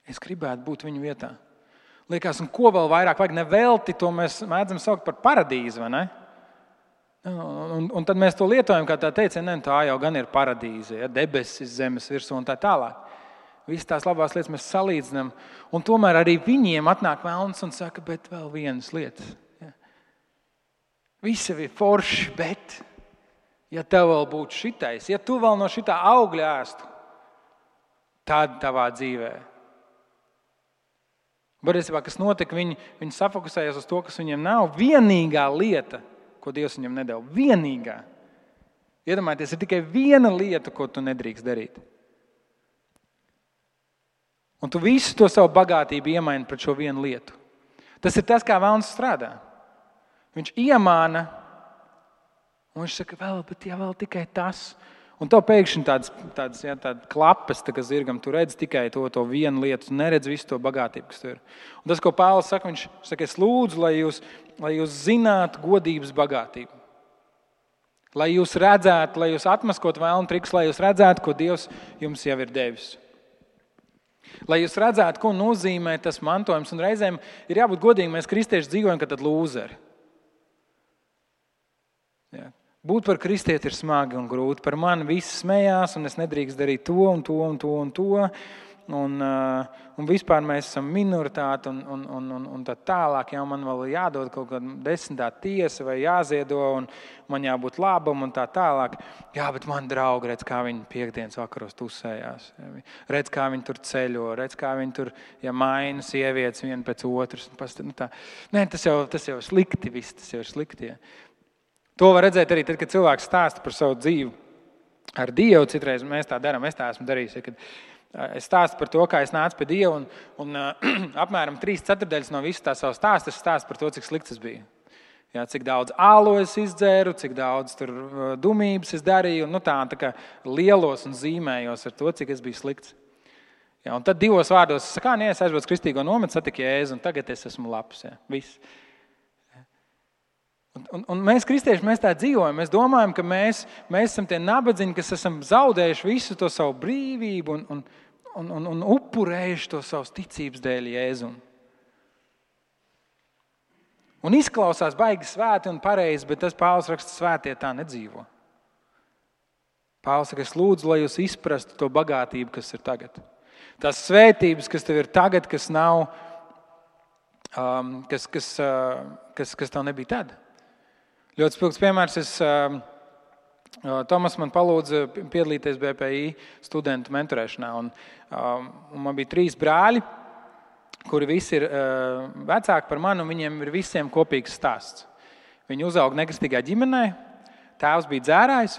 Es gribētu būt viņu vietā. Liekas, un ko vēl vairāk vajag? Nevelti to mēs mēdzam saukt par paradīzi, vai ne? Un tad mēs to lietojam, kā tā teicienu, tā jau gan ir paradīze, ja, debesis zemes virsū un tā tālāk. Visas tās labās lietas mēs salīdzinām, un tomēr arī viņiem atnāk velns un saka, bet vēl vienas lietas. Ja. Visi ir forši, bet ja tev vēl būtu šitais, ja tu vēl no šitā augļa ēstu, tad tavā dzīvē. Patiesībā, kas notika, viņi safokusējās uz to, kas viņiem nav. Vienīgā lieta, ko Dievs viņam nedeva. Vienīgā. Iedomājieties, ir tikai viena lieta, ko tu nedrīkst darīt. Un tu visu to savu bagātību iemaini pret šo vienu lietu. Tas ir tas, kā velns strādā. Viņš iemāna, un viņš saka, vēl tikai tas. Un tev pēkšņi tādas klapes, kā zirgam, tu redz tikai to vienu lietu, tu neredz visu to bagātību, kas tur ir. Un tas, ko Pāvils saka, viņš saka, es lūdzu, lai jūs zinātu godības bagātību. Lai jūs redzētu, lai jūs atmaskot vēlnu trikus, lai jūs redzētu, ko Dievs jums jau ir devis. Lai jūs redzētu, ko nozīmē tas mantojums. Un reizēm ir jābūt godīgi, mēs kristieši dzīvojam, ka tad lūzeri. Jā. Būt par kristieti ir smagi un grūti. Par mani visi smējās, un es nedrīkst darīt to un to un to un to. Un vispār mēs esam minoritāte un tā tālāk. Jā, man vēl jādod kaut kāda 10. tiesa vai jāziedo, un man jābūt labam un tā tālāk. Jā, bet man draugi, redz, kā viņi piektdienas vakaros tusējās. Redz, kā viņi tur ceļo, redz, kā viņi tur maina sievietes viena pēc otras. Nē, tas jau slikti viss, tas jau ir slikti. Jā. To var redzēt arī tad, kad cilvēks stāsta par savu dzīvi ar Dievu. Citreiz mēs tā darām, es tā esmu darījis. Ja, kad es stāstu par to, kā es nācu pie Dieva, un apmēram 3/4 no visu tā savu stāstu es stāstu par to, cik slikts es biju. Ja, cik daudz ālu es izdzēru, cik daudz tur dumības es darīju, un tā kā lielos un zīmējos ar to, cik es biju slikts. Ja, un tad 2 vārdos es saku, es aizbraucu kristīgo nometu, satiku Jēzu, un tagad es esmu labs. Ja, viss. Un mēs, kristieši, mēs tā dzīvojam. Mēs domājam, ka mēs esam tie nabadzīgi, kas esam zaudējuši visu to savu brīvību un upurējuši to savas ticības dēļ Jēzum. Un izklausās baigi svēti un pareizi, bet tas Pāvils raksta, svētie tā nedzīvo. Pāvils saka, es lūdzu, lai jūs izprastu to bagātību, kas ir tagad. Tās svētības, kas tev ir tagad, kas nav, kas tev nebija tad. Ļoti spilgts piemērs. Tomas man palūdza piedalīties BPI studentu mentorēšanā. Un man bija 3 brāļi, kuri visi ir vecāki par mani, un viņiem ir visiem kopīgs stāsts. Viņi uzauga nekristīgā ģimenē, tēvs bija dzērājs,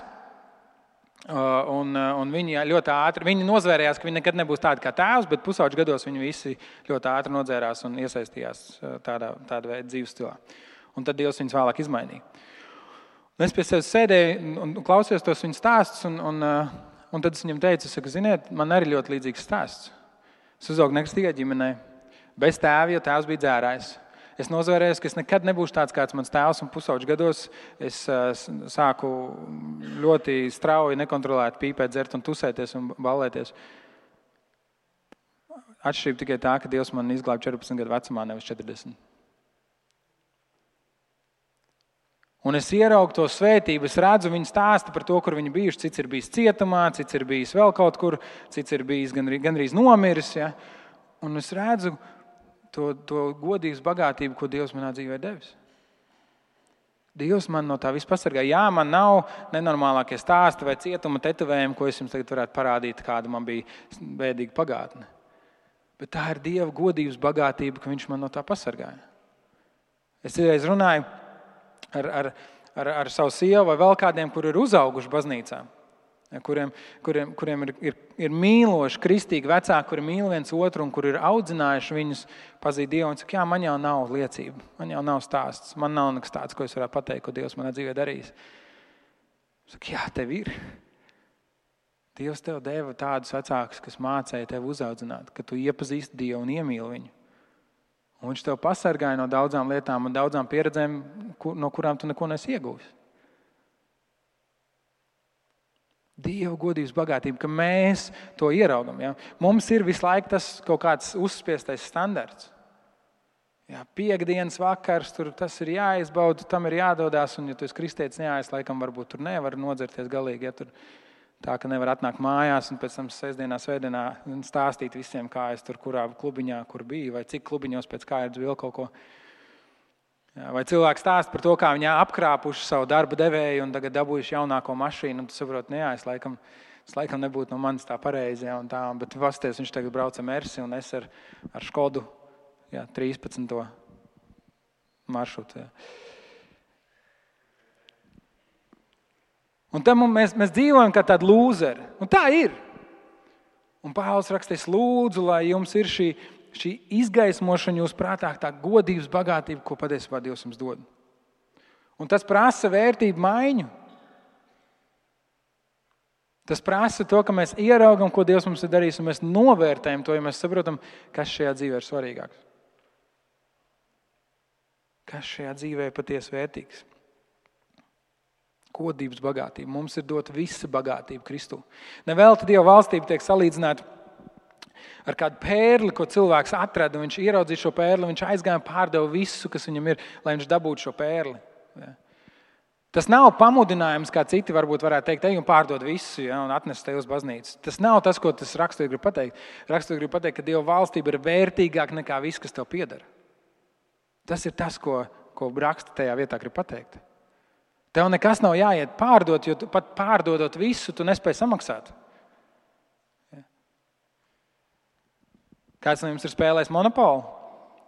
un viņi ļoti ātri, viņi nozvērējās, ka viņi nekad nebūs tādi kā tēvs, bet pusauģu gados viņi visi ļoti ātri nodzērās un iesaistījās tāda veida dzīves stilā. Un tad Dievs viņus vēlāk izmainīja. Un es pie sevis sēdēju un klausījos tos viņu stāstus, un tad es viņam teicu, ziniet, man arī ļoti līdzīgs stāsts. Es uzaugu nekristīgā ģimenē, bez tēva, jo tēvs bija dzērājs. Es nozvērējos, ka es nekad nebūšu tāds kāds mans tēvs, un pusauģu gados es sāku ļoti strauji, nekontrolēti pīpēt, dzert un tusēties un ballēties. Atšķirība tikai tā, ka Dievs man izglāba 14 gadu vecumā, nevis 40. Un es ieraugu to svētību, es redzu viņu stāstu par to, kur viņi bijuši, cits ir bijis cietumā, cits ir bijis vēl kaut kur, cits ir bijis gandrīz nomiris. Ja? Un es redzu to godības bagātību, ko Dievs manā dzīvē devis. Dievs man no tā viss pasargā. Jā, man nav nenormālākie stāsti vai cietuma tetovējumi, ko es jums tagad varētu parādīt, kāda man bija bēdīga pagātne. Bet tā ir Dieva godības bagātība, ka viņš man no tā pasargāja. Es reiz runāju ar savu sievu vai vēl kādiem, kuri ir uzauguši baznīcā, kuriem ir mīloši, kristīgi vecāki, kuri mīl viens otru un kuri ir audzinājuši viņus pazīt Dievu. Un saka, jā, man jau nav liecība, man jau nav stāsts, man nav nekas tāds, ko es varētu pateikt, ko Dievs manā dzīvē darījis. Saka, jā, tev ir. Dievs tev deva tādus vecākus, kas mācīja tev uzaudzināt, ka tu iepazīsti Dievu un iemīli viņu. Un viņš tev pasargāja no daudzām lietām un daudzām pieredzēm, no kurām tu neko nesi iegūsi. Dieva godības bagātība, ka mēs to ieraugam. Ja? Mums ir visu laiku tas kaut kāds uzspiestais standarts. Ja, piektdienas vakars, tas ir jāizbauda, tam ir jādodās, un ja tu esi kristietis neaiz, laikam varbūt tur nevar nodzerties galīgi, ja tur tā, ka nevar atnākt mājās un pēc tam sestdienā, svētdienā stāstīt visiem, kā es tur kurā klubiņā, kur biju, vai cik klubiņos pēc kārtas vēl kaut ko. Ja, vai cilvēks stāst par to, kā viņi apkrāpuši savu darba devēju un tagad dabūjuši jaunāko mašīnu, un tu saproti, es laikam nebūtu no manis tā pareizi, ja, un tā, bet pasties, viņš tagad brauca Mersi un es ar Škodu, 13. maršrutu. Ja. Un tam mēs dzīvojam kā tādi lūzeri. Un tā ir. Un Pāvils rakstīs, lūdzu, lai jums ir šī izgaismošana jūs prātā, tā godības bagātība, ko patiesībā Dievs jums dod. Un tas prasa vērtību maiņu. Tas prasa to, ka mēs ieraugam, ko Dievs mums ir darījis, un mēs novērtējam to, ja mēs saprotam, kas šajā dzīvē ir svarīgāks. Kas šajā dzīvē ir patiesi vērtīgs. Godības bagātība. Mums ir dota visa bagātība Kristū. Nevelti Dieva valstība tiek salīdzināta ar kādu pērli, ko cilvēks atrada. Viņš ieraudzīja šo pērli, viņš aizgāja un pārdeva visu, kas viņam ir, lai viņš dabūtu šo pērli. Ja. Tas nav pamudinājums, kā citi varbūt varētu teikt, ej un pārdod visu, ja, un atnest te uz baznīcu. Tas nav tas, ko tas raksturīgi grib pateikt. Raksturīgi grib pateikt, ka Dieva valstība ir vērtīgāka nekā viss, kas tev pieder. Tas ir tas, ko raksta tajā vietā grib pateikt. Tev nekas nav jāiet pārdot, jo pat pārdodot visu, tu nespēji samaksāt. Ja. Kāds no jums ir spēlējis Monopolu?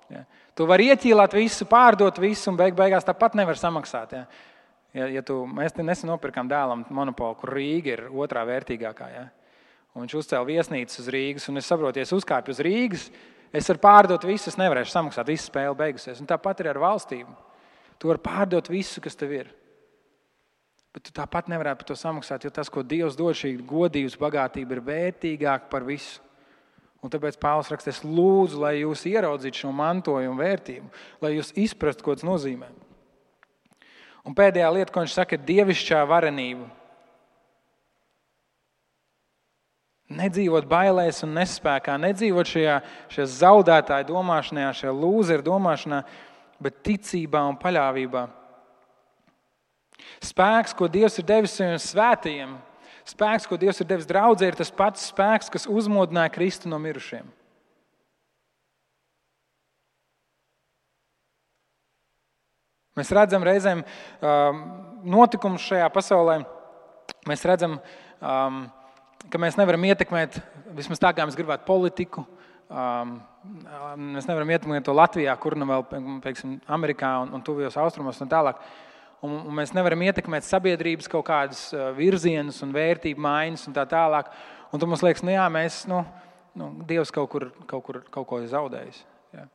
Ja. Tu vari ieķīlāt visu, pārdot visu un beigās tāpat nevar samaksāt. Ja. Mēs nesen nopirkām dēlam Monopolu, kur Rīga ir otrā vērtīgākā. Ja. Un viņš uzcēla viesnīcas uz Rīgas, un es saprotu, ja es uzkāpju uz Rīgas, es varu pārdot visu, es nevarēšu samaksāt, visa spēle beigusies. Un tāpat ir ar valstību. Tu vari pārdot visu, kas tev ir. Bet tu tāpat nevarētu par to samaksāt, jo tas, ko Dievs dod, šī godības bagātība ir vērtīgāka par visu. Un tāpēc Pāvils raksta, es lūdzu, lai jūs ieraudzītu šo mantojumu vērtību, lai jūs izprastu, ko tas nozīmē. Un pēdējā lieta, ko viņš saka, ir dievišķā varenība. Nedzīvot bailēs un nespēkā, nedzīvot šajā zaudētāju domāšanā, šajā lūzeru domāšanā, bet ticībā un paļāvībā. Spēks, ko Dievs ir devis saviem svētajiem, spēks, ko Dievs ir devis draudzē, ir tas pats spēks, kas uzmodināja Kristu no mirušiem. Mēs redzam reizēm notikumus šajā pasaulē. Mēs redzam, ka mēs nevaram ietekmēt, vismaz tā kā mēs gribētu, politiku. Mēs nevaram ietekmēt to Latvijā, kur nu vēl, pieksim, Amerikā un tuvajos austrumos un tālāk. Un mēs nevaram ietekmēt sabiedrības kaut kādas virzienus un vērtību maiņas un tā tālāk. Un tu mums liekas, mēs, Dievs kaut ko ir zaudējis. Ja.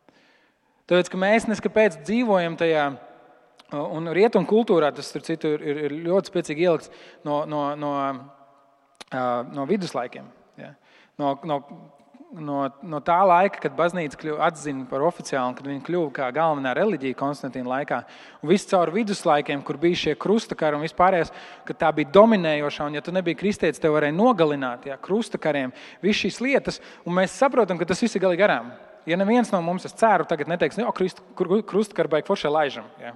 Tāpēc, ka mēs neskapēc dzīvojam tajā, un rietumu kultūrā tas ir ļoti spēcīgi ielikts no viduslaikiem. Ja. No tā laika, kad baznīca atzina par oficiālu, kad viņa kļuva kā galvenā reliģija Konstantīna laikā, un viss caur viduslaikiem, kur bija šie krustakari un vispārējais, ka tā bija dominējošā, un ja tu nebija kristietis, tev varēja nogalināt, krustakariem, viss šīs lietas, un mēs saprotam, ka tas viss ir galīgi garām. Ja neviens no mums, es ceru, tagad neteiks, krustakari baigi foršie laižam. Ja.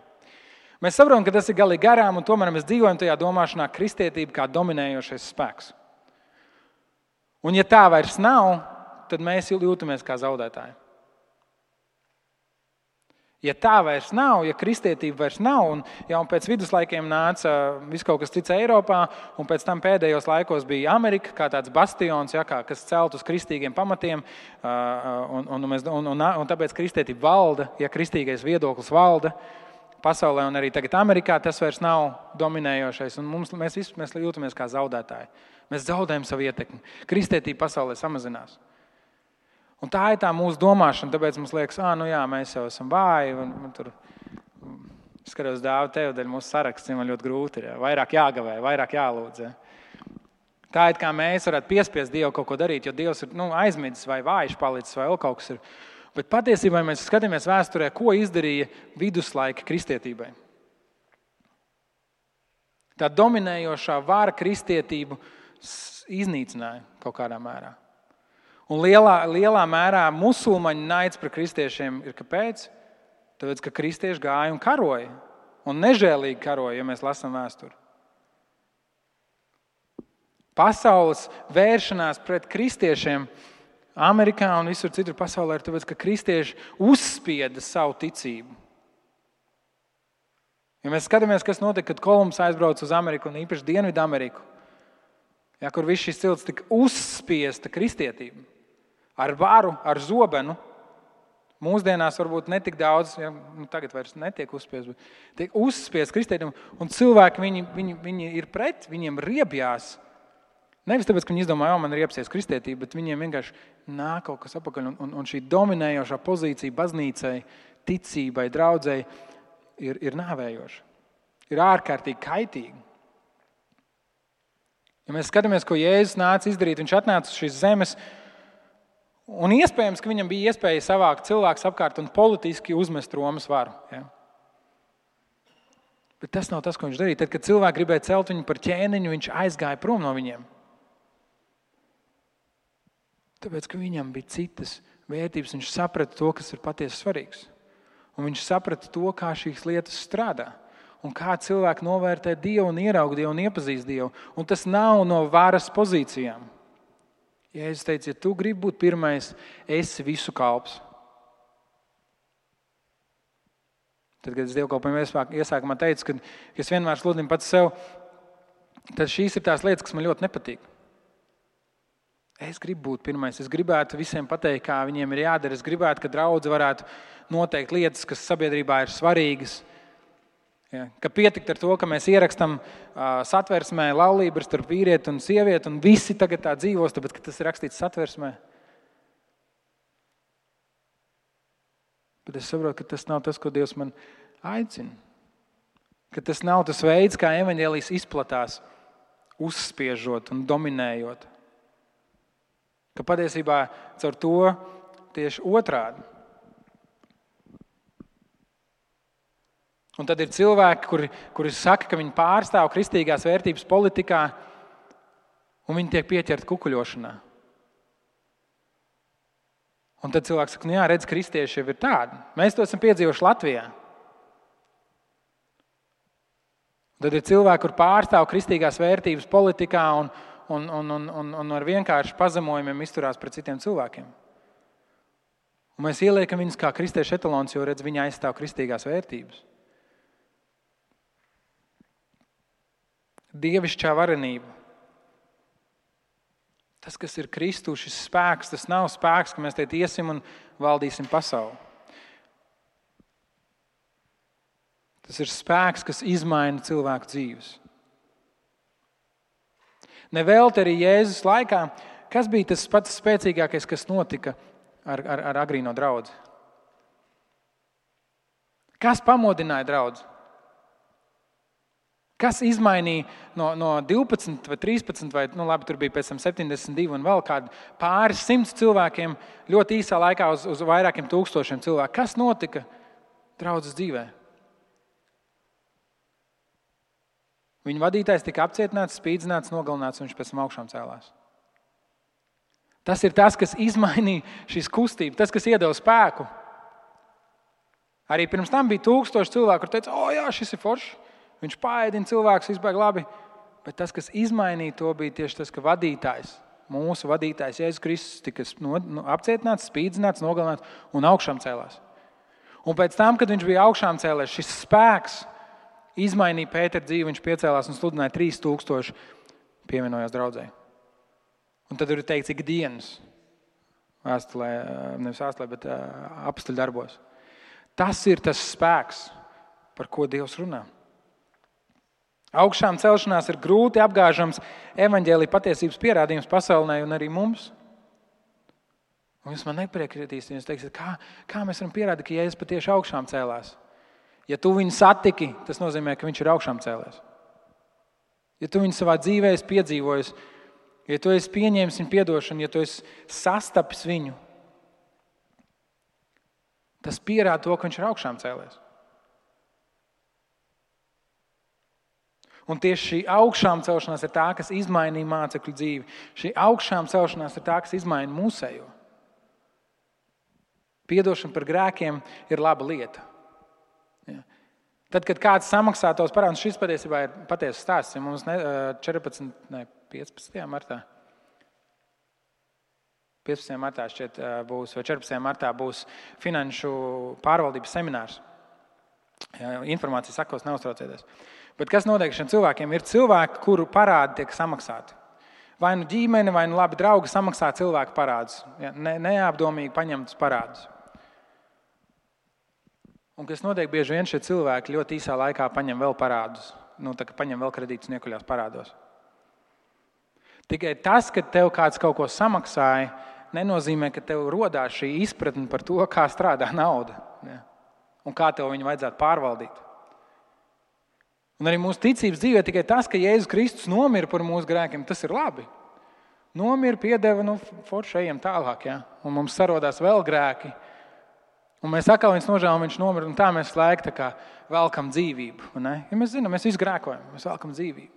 Mēs saprotam, ka tas ir galīgi garām, un tomēr mēs dzīvojam tajā domāšanā kristietība kā dominējošais spēks. Un ja tā vairs nav, tad mēs jūtamies kā zaudētāji. Ja tā vairs nav, ja kristietība vairs nav, un pēc viduslaikiem nāca viss kaut kas cits Eiropā, un pēc tam pēdējos laikos bija Amerika, kā tāds bastions, kas celt uz kristīgiem pamatiem, un tāpēc kristietība valda, ja kristīgais viedoklis valda pasaulē, un arī tagad Amerikā tas vairs nav dominējošais, un mēs jūtamies kā zaudētāji. Mēs zaudējam savu ietekmi. Kristietība pasaulē samazinās. Un tā ir tā mūsu domāšana, tāpēc mums liekas, mēs jau esam vāji, un tur skatos Dāvi tev, dēļ mūsu saraksts, man ļoti grūti ir, vairāk jāgavē, vairāk jālūdz. Tā it kā mēs varētu piespiest Dievu kaut ko darīt, jo Dievs ir aizmidzis vai vājš palicis vai vēl kaut kas ir. Bet patiesībā mēs skatāmies vēsturē, ko izdarīja viduslaika kristietībai. Tā dominējošā vara kristietību iznīcināja kaut kādā mērā. Un lielā mērā musulmaņu naids par kristiešiem ir kāpēc? Tāpēc, ka kristieši gāja un karoja. Un nežēlīgi karoja, ja mēs lasām vēsturi. Pasaules vēršanās pret kristiešiem Amerikā un visur citur pasaulē ir tāpēc, ka kristieši uzspieda savu ticību. Ja mēs skatāmies, kas notika, kad Kolumbs aizbrauca uz Ameriku un īpaši Dienvidu Ameriku, kur viss šis cilts tika uzspiesta kristietība ar varu, ar zobenu. Mūsdienās varbūt netik daudz, tagad vairs netiek uzspiest, bet tiek uzspiest kristietību. Un cilvēki, viņi ir pret, viņiem riebjās. Nevis tāpēc, ka viņi izdomāja, man ir iepsies kristietība, bet viņiem vienkārši nāk kaut kas apakaļ. Un šī dominējošā pozīcija baznīcai, ticībai, draudzei ir nāvējoša. Ir ārkārtīgi kaitīga. Ja mēs skatāmies, ko Jēzus nāca izdarīt, viņš atnāca uz šīs zemes, un iespējams, ka viņam bija iespēja savākt cilvēkus apkārt un politiski uzmest Romas varu. Ja? Bet tas nav tas, ko viņš darīja. Tad, kad cilvēki gribēja celt viņu par ķēniņu, viņš aizgāja prom no viņiem. Tāpēc, ka viņam bija citas vērtības, viņš saprata to, kas ir patiesi svarīgs. Un viņš saprata to, kā šīs lietas strādā. Un kā cilvēki novērtē Dievu un ieraug Dievu un iepazīst Dievu. Un tas nav no varas pozīcijām. Jēzus teica, ja tu gribi būt pirmais, esi visu kalps. Tad, kad es dievkalpojumu iesākumā teicu, ka es vienmēr sludinu pats sev, tad šīs ir tās lietas, kas man ļoti nepatīk. Es gribu būt pirmais, es gribētu visiem pateikt, kā viņiem ir jādara. Es gribētu, ka draudze varētu noteikt lietas, kas sabiedrībā ir svarīgas. Ja, ka pietikt ar to, ka mēs ierakstam satversmē laulību starp vīrieti un sievieti, un visi tagad tā dzīvos, tāpēc, ka tas ir rakstīts satversmē. Bet es saprotu, ka tas nav tas, ko Dievs man aicina. Ka tas nav tas veids, kā evaņģēlijs izplatās, uzspiežot un dominējot. Ka patiesībā caur to tieši otrādi. Un tad ir cilvēki, kuri saka, ka viņi pārstāv kristīgās vērtības politikā, un viņi tiek pieķerti kukuļošanā. Un tad cilvēks saka, jā, redz, kristieši jau ir tādi. Mēs to esam piedzīvojuši Latvijā. Tad ir cilvēki, kur pārstāv kristīgās vērtības politikā un ar vienkārši pazemojumiem izturās pret citiem cilvēkiem. Un mēs ieliekam viņus kā kristiešu etalons, jo redz, viņi aizstāv kristīgās vērtības. Dievišķā varenība. Tas, kas ir Kristu, šis spēks, tas nav spēks, ka mēs te iesim un valdīsim pasauli. Tas ir spēks, kas izmaina cilvēku dzīves. Nevelti arī Jēzus laikā, kas bija tas pats spēcīgākais, kas notika ar agrīno draudzi? Kas pamodināja draudzi? Kas izmainīja no 12 vai 13 vai, labi, tur bija pēc tam 72 un vēl kādi pāris 100 cilvēkiem ļoti īsā laikā uz vairākiem tūkstošiem cilvēku. Kas notika draudzes dzīvē? Viņa vadītājs tika apcietināts, spīdzināts, nogalināts, un viņš pēc tam augšām cēlās. Tas ir tas, kas izmainīja šīs kustības, tas, kas iedeva spēku. Arī pirms tam bija 1000 cilvēku, kur teica, jā, šis ir foršs. Viņš paēdina cilvēkus, izbēg labi, bet tas, kas izmainīja to, bija tieši tas, ka vadītājs, mūsu vadītājs Jēzus Kristus tika apcietināts, spīdzināts, nogalināts un augšām cēlās. Un pēc tam, kad viņš bija augšām cēlēs, šis spēks izmainīja Pētera dzīvi, viņš piecēlās un sludināja 3000 pievienojās draudzē. Un tad ir teikts ikdienas vēstulē, nevis vēstulē, bet apstuļu darbos. Tas ir tas spēks, par ko Dievs runā. Augšām celšanās ir grūti apgāžams evaņģēlija patiesības pierādījums pasaulē un arī mums. Un jūs man nepriekritīsiet, jūs teiksiet, kā mēs varam pierādīt, ka Jēzus patieši augšām cēlās? Ja tu viņu satiki, tas nozīmē, ka viņš ir augšām cēlēs. Ja tu viņu savā dzīvē esi piedzīvojis, Ja tu esi pieņēmis viņa piedošanu, ja tu esi sastapis viņu, tas pierāda to, ka viņš ir augšām cēlies. Un tieši šī augšām celšanās ir tā, kas izmainīja mācekļu dzīvi. Šī augšām celšanās ir tā, kas izmaina mūsējo. Piedošana par grēkiem ir laba lieta. Ja. Tad, kad kāds samaksā tos parādus, šis patiesībā ir patiesas stāsts. Ja mums 15. martā. 15. martā šķiet būs, vai 14. martā būs finanšu pārvaldības seminārs. Ja, informācija sakos, neuztraucieties. Bet kas notiek šiem cilvēkiem? Ir cilvēki, kuru parādi tiek samaksāti. Vai nu ģimene, vai nu labi draugi samaksā cilvēku parādus. Ja, neapdomīgi paņemtus parādus. Un kas notiek, bieži vien šie cilvēki ļoti īsā laikā paņem vēl parādus. Tā kā paņem vēl kredītus un iekuļās parādos. Tikai tas, ka tev kāds kaut ko samaksāja, nenozīmē, ka tev rodās šī izpratne par to, kā strādā nauda. Ja, un kā tev viņu vajadzētu pārvaldīt. Un arī mūsu ticības dzīvē tikai tas, ka Jēzus Kristus nomira par mūsu grēkiem, tas ir labi. Nomira, piedeva, forši ejam tālāk, ja? Un mums sarodās vēl grēki. Un mēs atkal viņus nožēlam, viņš nomira, un tā mēs laik tā kā velkam dzīvību. Ne? Ja mēs zinām, mēs visi grēkojam, mēs velkam dzīvību.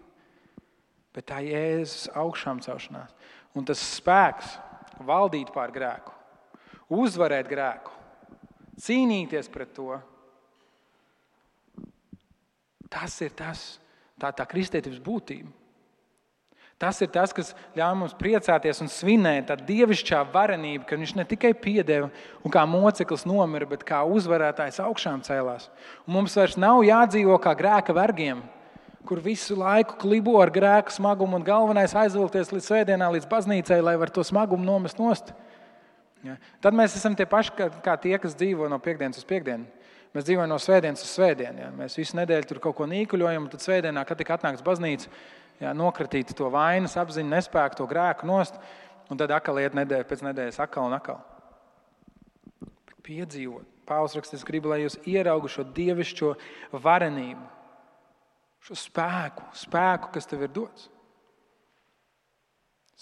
Bet tā Jēzus augšām celšanās. Un tas spēks valdīt pār grēku, uzvarēt grēku, cīnīties pret to. Tas ir tā kristietības būtība. Tas ir tas, kas ļauj mums priecāties un svinēt tā dievišķā varenība, ka viņš ne tikai piedeva un kā moceklis nomira, bet kā uzvarētājs augšām cēlās. Un mums vairs nav jādzīvo kā grēka vergiem, kur visu laiku klibo ar grēku smagumu un galvenais aizvilkties līdz svētdienā, līdz baznīcai, lai var to smagumu nomest nost. Ja. Tad mēs esam tie paši, kā tie, kas dzīvo no piekdienas uz piekdienu. Mēs dzīvojam no svētdienas uz svētdienu. Ja. Mēs visu nedēļu tur kaut ko nīkuļojam, un tad svētdienā, kad tik atnāks baznīca, ja, nokratīt to vainas apziņu, nespēku, to grēku nost, un tad atkal iet nedēļa pēc nedēļas atkal un atkal. Bet piedzīvot. Pāvils raksta, es gribu, lai jūs ieraugu šo dievišķo varenību, šo spēku, kas tev ir dots.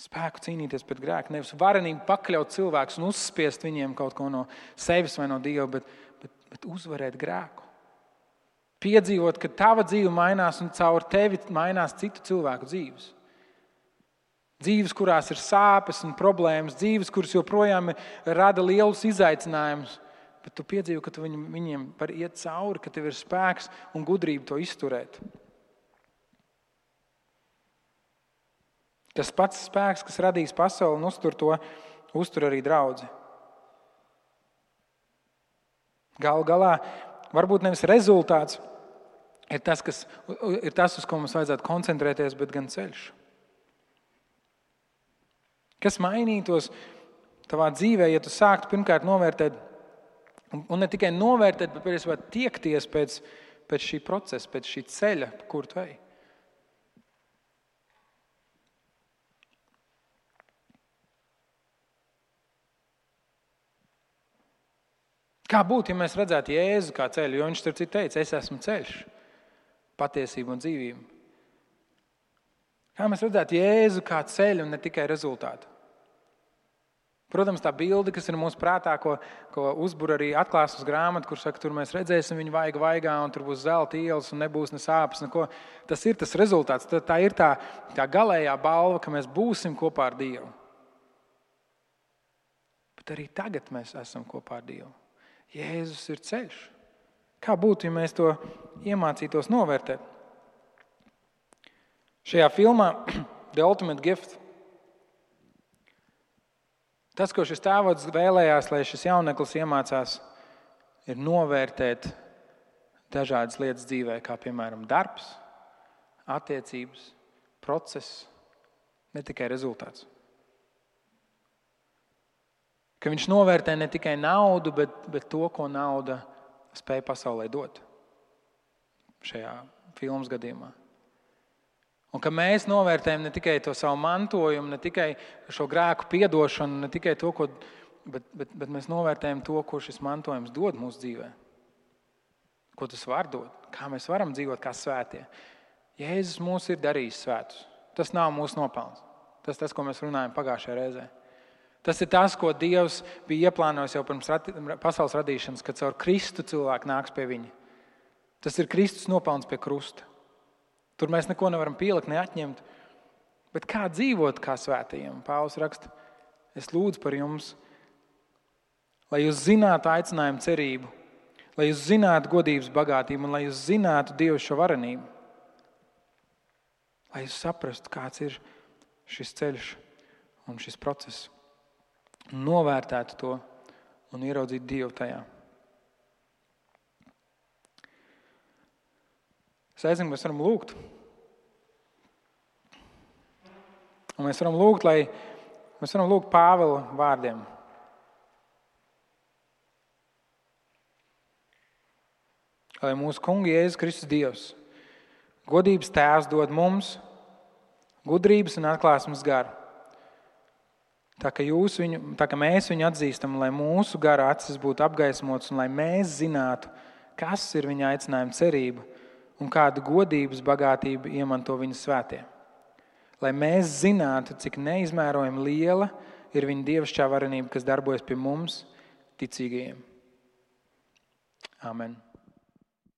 Spēku cīnīties pret grēku, nevis varenību pakļaut cilvēkus un uzspiest viņiem kaut ko no sevis vai no Dieva, bet uzvarēt grēku. Piedzīvot, ka tava dzīve mainās un caur tevi mainās citu cilvēku dzīves. Dzīves, kurās ir sāpes un problēmas, dzīves, kuras joprojām rada lielus izaicinājumus, bet tu piedzīvo, ka tu viņiem var iet cauri, ka tev ir spēks un gudrība to izturēt. Tas pats spēks, kas radīs pasauli un uztur arī draudzi. Galu galā, varbūt nevis rezultāts ir tas, uz ko mums vajadzētu koncentrēties, bet gan ceļš. Kas mainītos tavā dzīvē, ja tu sāktu pirmkārt novērtēt, un ne tikai novērtēt, bet patiesībā tiekties pēc šī procesa, pēc šī ceļa, pa kuru tu ej. Kā būtu, ja mēs redzētu Jēzu kā ceļu, jo viņš tur citu teica, es esmu ceļš, patiesība un dzīvība. Kā mēs redzētu Jēzu kā ceļu un ne tikai rezultātu. Protams, tā bilde, kas ir mūsu prātā, ko uzbur arī atklāsmes grāmata, kur saka, tur mēs redzēsim viņu vaigā, un tur būs zelta ielas un nebūs ne sāpes, neko. Tas ir tas rezultāts, tā ir tā galējā balva, ka mēs būsim kopā ar Dievu. Bet arī tagad mēs esam kopā ar Dievu. Jēzus ir ceļš. Kā būtu, ja mēs to iemācītos novērtēt? Šajā filmā The Ultimate Gift tas, ko šis tēvots vēlējās, lai šis jauneklis iemācās, ir novērtēt dažādas lietas dzīvē, kā piemēram darbs, attiecības, process, ne tikai rezultāts. Ka viņš novērtē ne tikai naudu, bet to, ko nauda spēja pasaulē dot šajā filmas gadījumā. Un ka mēs novērtējam ne tikai to savu mantojumu, ne tikai šo grēku piedošanu, ne tikai to, bet mēs novērtējam to, ko šis mantojums dod mūsu dzīvē. Ko tas var dot, kā mēs varam dzīvot kā svētie. Jēzus mūs ir darījis svētus. Tas nav mūsu nopelns. Tas, ko mēs runājam pagājušajā reizē. Tas ir tas, ko Dievs bija ieplānojis jau pirms pasaules radīšanas, kad caur Kristu cilvēki nāks pie viņa. Tas ir Kristus nopelns pie krusta. Tur mēs neko nevaram pielikt, ne atņemt. Bet kā dzīvot kā svētajiem? Pāvils raksta, es lūdzu par jums, lai jūs zinātu aicinājumu cerību, lai jūs zinātu godības bagātību un lai jūs zinātu Dievu šo varenību. Lai jūs saprastu, kāds ir šis ceļš un šis process. Novērtētu to un ieraudzītu Dievu tajā. Es aizinu, mēs varam lūgt. Un mēs varam lūgt Pāvila vārdiem. Lai mūsu kunga Jēzus Kristus Dievs, godības tēvs dod mums gudrības un atklāsmes garu. Tā ka mēs viņu atzīstam, lai mūsu gara acis būtu apgaismotas un lai mēs zinātu, kas ir viņa aicinājuma cerība un kādu godības bagātību iemanto viņa svētie. Lai mēs zinātu, cik neizmērojami liela ir viņa dievišķā varenība, kas darbojas pie mums, ticīgajiem. Amen.